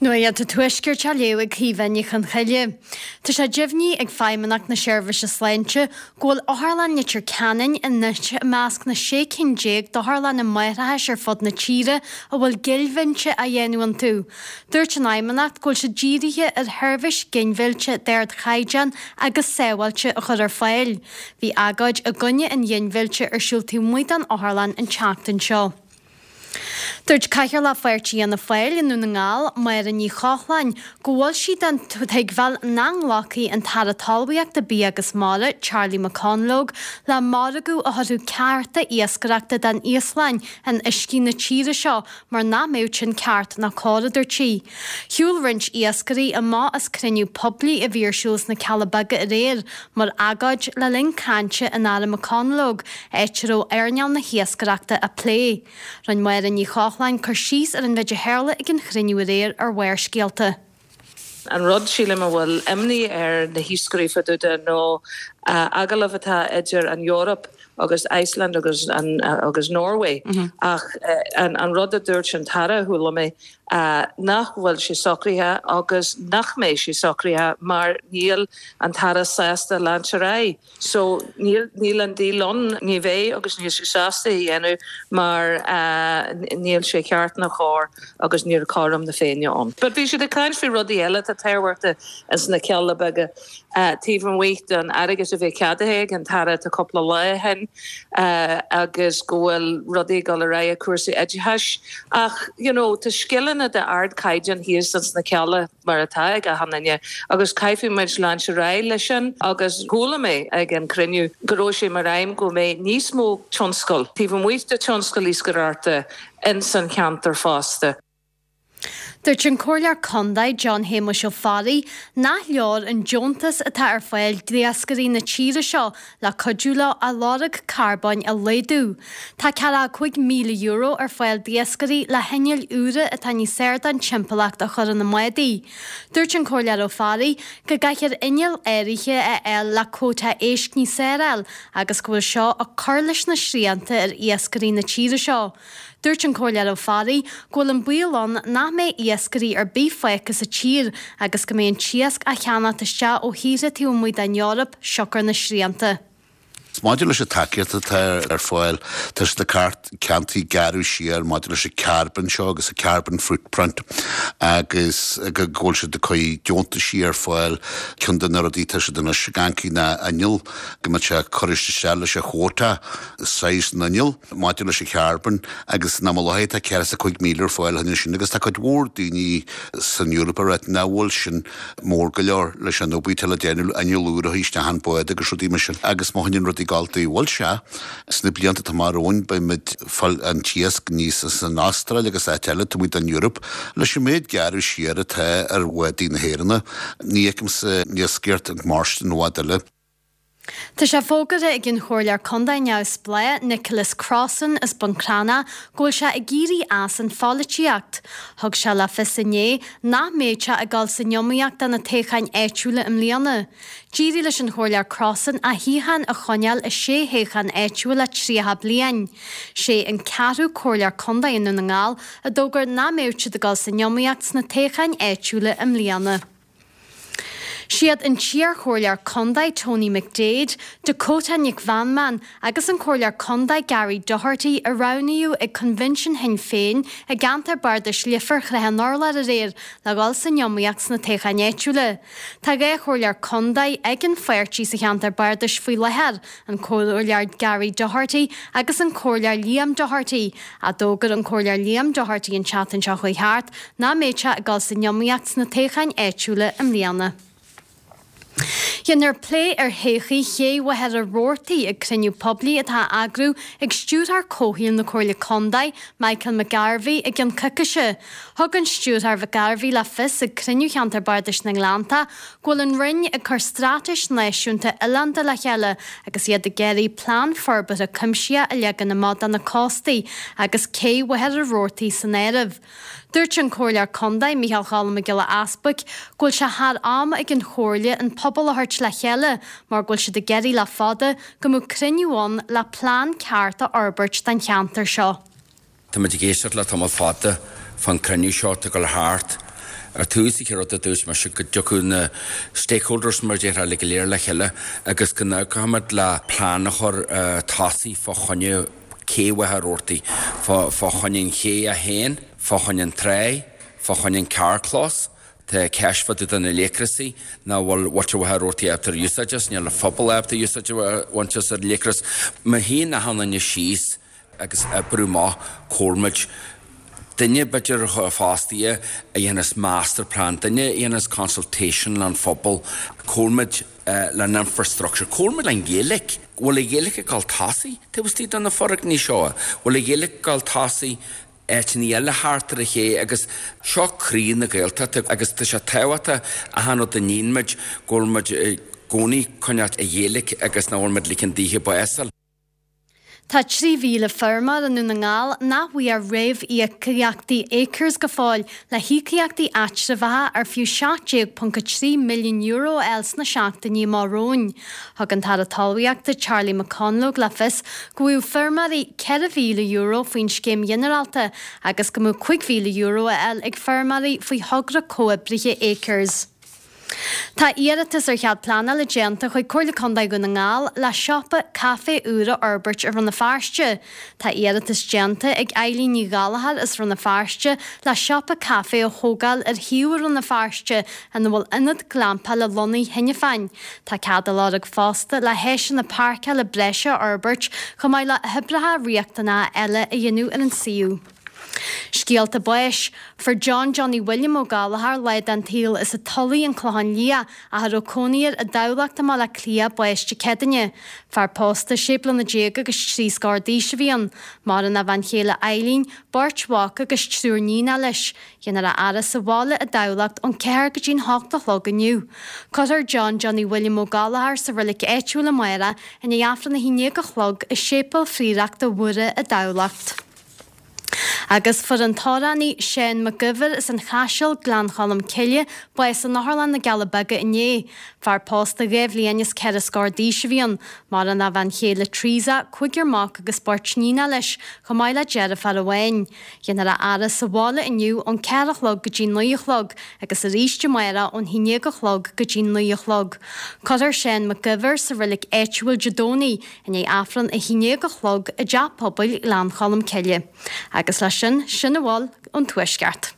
Nuacht an Tuaiscirt á léamh ag Caoimhe Ní Chonchoille. Tá sé deimhnithe ag Feidhmeannacht na Seirbhíse Sláinte go bhfuil Otharlann Leitir Ceanainn anois i measc na 16 cinn d'otharlanna máithreachais ar fud na tíre a bhfuil ginmhilleadh á dhéanamh iontu. Dúirt an Fheidhmeannacht go bhfuil siad dírithe ar sheirbhís ginmhillte d'ardchaighdeán agus sábháilte a chur ar fáil. Bhí agóid i gcoinne an ghinmhillte ar siúl taobh amuigh den otharlann an tseachtain seo. Dúirt Cathaoirleach Pháirtí Fhianna Fáil i nDún na nGall, Máire Ní Chochláin, go bhfuil sí den tuigbheáil nach nglacfaidh an tAire Talmhaíochta, Bia agus Mara, Charlie McConalogue, le margadh a thabharfadh cearta iascaireachta don Íoslainn in uiscí na tíre seo mar nach mbeadh sin ceart ná cóir, a dúirt sí. Shiúil roinnt iascairí amach as cruinniú poiblí a bhí ar siúl sna Cealla Beaga aréir mar agóid le linn cainte an Aire McConalogue, áit a raibh earnáil na hiascaireachta á plé. Rinne Máire Ní Chochláin cur síos ar an mhéid a tharla ag an chruinniú aréir ar Bharrscéalta. An rud, sílim, a bhfuil imní ar na hiascairí fá dtaobh de nó agallamh atá idir an Eoraip agus Iceland agus agus Norway ach an rud a dúirt an tAire, chuala mé, nach bhfuil sé socraithe agus nach mbeidh sé socraithe mar níl an tAire sásta leanúint ar aghaidh. So níl, níl an deal ann, ní bheidh agus níl sé sásta é a dhéanamh mar níl sé ceart ná cóir agus níl cothrom na Féinne ann. But bhí siad ag caint faoi rudaí eile atá tábhachtach ins na Cealla Beaga taobh amuigh den airgead a bhí ceadaithe ag an tAire tá cúpla lá ó shin agus go bhfuil rudaí ag dul ar aghaidh i cúrsaí oideachais ach you know tá scileanna d'ardchaighdeán thíos ins na Cealla. mar atá ag achan duine, agus caithfidh muid leanúint ar aghaidh leis sin agus chuala mé ag an cruinniú go raibh sé mar aidhm go mbeidh níos mó tionscal taobh amuigh de tionscal iascaireachta ins an cheantar fosta. Dúirt an Comhairleoir Condae John Shéamuis Ó Fearraigh nach leor an deontas atá ar fáil d'iascairí na tíre seo le cuidiú leo a lorg carbóin a laghdú. Tá €45,000 ar fáil d'iascairí le hinnill úra atá níos fearr don timpeallacht a chur ina mbádaí. Dúirt an Comhairleoir Ó Fearraigh go gcaithfear innill áirithe a fháil le cuóta éisc níos fearr a fháil agus go bhfuil seo ag cur leis na srianta ar iascairí na tíre seo. Dúirt an Comhairleoir Ó Fearraigh go bhfuil an baol ann nach mbeidh iascairí ar bith fágtha sa tír agus go mbeidh an t-iasc á cheannacht isteach ó thíortha taobh amuigh den Eoraip siocair na srianta. Maidir leis an tacaíocht atá ar fáil, tá siad ag ceantaí gearradh siar maidir leis an carbon seo agus an carbon footprint agus go bhfuil siad ag cur deontaisí ar fáil. Ceann de na rudaí atá siad anois ag amharc ná inneall go mbeadh sé ag cur isteach leis an quota size na n-inneall. maidir leis an charbon agus in am i láthair tá 45,000 ar fáil cheana sin agus tá cuid mhór daoine san Eoraip ag ráit nach bhfuil sin mór go leor leis an obair atá le déanamh inneall úr a chur isteach an bád agus rudaí mar sin agus má choinníonn rudaí ag gabháil dóibh bhfuil sé sna blianta atá amach romhainn beidh muid ag fáil an t-iasc aníos as an Astráil agus áit eile taobh amuigh den Eoraip leis an méid gearradh siar atá ar bhádaí na hÉireanna ní fheicimse iascaireacht ag mairstin i bhfad eile. Tá sé fógartha ag an Chomhairleoir Contae neamhspleách Nicholas Crossan as Bun Cranncha go bhfuil sé ag éirí as an pholaitíocht. Thug sé le fios inné nach mbeidh sé ag dul san iomaíocht do na toghcháin áitiúla i mbliana. D'éirigh leis an Chomhairleoir Crossan a shuíochán a choinneáil i sé thoghchán áitiúil le 30 bliain. Sé an ceathrú Comhairleoir Contae i nDún na nGall a d'fhógair nach mbeadh siad ag dul san iomaíocht sna toghcháin áitiúla i mbliana. Siad an t-iarchomhairleoir contae Tony McDaid, Dakota Nic Mheanman agus an Comhairleoir Contae Gary Doherty a roghnaíodh ag Coinbhinsiún Shinn Féin i gceantar Bardais Leifear Shrath an Urláir aréir le dhul san iomaíocht sna toghcháin áitiúla. Tá 2 chomhairleoir contae ag an pháirtí sa cheantar bardais faoi láthair, an Comhairleoir Gary Doherty agus an Comhairleoir Liam Doherty. Ach d'fhógair an Comhairleoir Liam Doherty an tseachtain seo chuaigh thart nach mbeadh sé ag dul san iomaíocht sna toghcháin áitiúla i mbliana. Déanfar plé ar thodhchaí Ché Mhachaire Rabhartaigh ag cruinniú poiblí atá á eagrú ag Stiúrthóir Comhshaoil na Comhairle Contae, Michael McGarvey, i gceann coicíse. Thug an Stiúrthóir McGarvey le fios ag cruinniú Cheantar Bardais na nGleannta go bhfuil an Roinn ag cur straitéis náisiúnta oileánda le chéile agus iad ag iarraidh plean forbartha cuimsitheach a leagan amach do na cóstaí agus cé Mhachaire Rabhartaigh san áireamh. Dúirt an Comhairleoir Contae, Micheál Choilm Mac Giolla Easbuic, go bhfuil sé thar am ag an Chomhairle an pobal a thabhairt le chéile mar go bhfuil siad ag iarraidh le fada go mbeadh cruinniú ann le plean ceart a fhorbairt don cheantar seo. Tá muid ag éisteacht le tamall fada fán cruinniú seo atá ag dul thart. Ar tús, an chéad rud a dúirt mise go dtiocfadh na stakeholders mar a déarfá uilig go léir le chéile agus go n-amharcfadh muid le plean a chur tosaigh fá choinne cé Mhachaire Rabhartaigh, fá choinne an ché A1, fá choinne an tráigh, fá choinne an carrchlós. Tá ceist fá dtaobh de na laochrasaí nach bhfuil muintir Mhachaire Rabhartaigh ábalta ar úsáid as, níl an phobal ábalta úsáid a bhaint as ar an laochras. Má shuíonn achan duine síos agus oibriú amach comhair muid duine b'fhéidir fostaithe a dhéanfas master plan, duine a dhéanfas consultation leis an phobal, comhair muid le an infrastructure, comhair muid le an Ghaeilge. Bhfuil an Ghaeilge ag dul tosaigh taobh istigh de na foirgnimh seo? Bhfuil an Ghaeilge ag dul tosaigh áiteanna eile thart ar an ché agus seo croí na Gaeltachta agus tá sé tábhachtach achan rud a níonn muid go bhfuil muid i gcónaí coinneáil an Ghaeilge agus nach bhfuil muid ligean daoithe bás a fháil. Tá 3,000 feirmeoir i nDún na nGall nach bhfuair réamhíocaíochtaí Acres go fóill le híocaíochtaí eatramhacha ar fiú €17.3 milliún a fháil sna seachtainí amach romhainn. Thug an tAire Talmhaíochta Charlie McConalogue le fios go bhfaigheadh feirmeoirí €4,000 faoin scéim ghinearálta agus go mbeadh €5,000 á fháil ag feirmeoirí faoi thogra comhoibrithe Acres. Tá iarratas ar chead pleanála déanta chuig Comhairle Contae Dhún na nGall le siopa caife úr a fhorbairt i Rann na Feirste. Tá iarratas déanta ag Eileen Ní Ghallchóir as Rann na Feirste le siopa caife a thógáil ar shuíomh i Rann na Feirste ina bhfuil ionad glampála lonnaithe cheana féin. Tá cead á lorg fosta le háiseanna páirceála breise a fhorbairt chomh maith le hoibreacha riachtanacha eile a dhéanamh ar an suíomh. Scéalta báis. Fuair John Johnny William Ó Gallchóir, lá den tsaol as an Tulaigh, An Clochán Liath, ach a raibh cónaí air i dTamhlacht i mBaile Átha Cliath, bás Dé Céadaoine. Fear pósta, sé bliana déag agus trí scór d'aois a bhí ann. Maireann a bhean chéile Eileen, beirt mhac agus triúr níonacha leis. Déanfar a fhaire sa bhaile i dTamhlacht ón ceathair go dtí'n hocht a chlog inniu. Cuirfear John Johnny William Ó Gallchóir sa roilig áitiúil amárach i ndiaidh Aifreann a haon déag a chlog i Séipéal Phrióireachta Mhuire i dTamhlacht. Agus fuair an t-amhránaí Seán Mac Uidhir as an Chaiseal, Gleann Cholm Cille, bás in Otharlann na gCealla Beaga inné. Fear pósta dhá bhliain is ceithre scór d'aois a bhí ann. Maireann a bhean chéile Teresa, cúigear mac agus beirt níonacha leis, chomh maith le deirfiúr amháin. Déanfar a fhaire sa bhaile inniu ón ceathair a chlog go dtí naoi a chlog agus arís amárach ón haon déag a chlog go dtí naoi a chlog. Cuirfear Seán Mac Uidhir sa reilig áitiúil Dé Domhnaigh i ndiaidh Aifreann a haon déag a chlog i dTeach Pobail Ghleann Cholm Cille. Agus leis sin, sin a bhfuil ón Tuaisceart.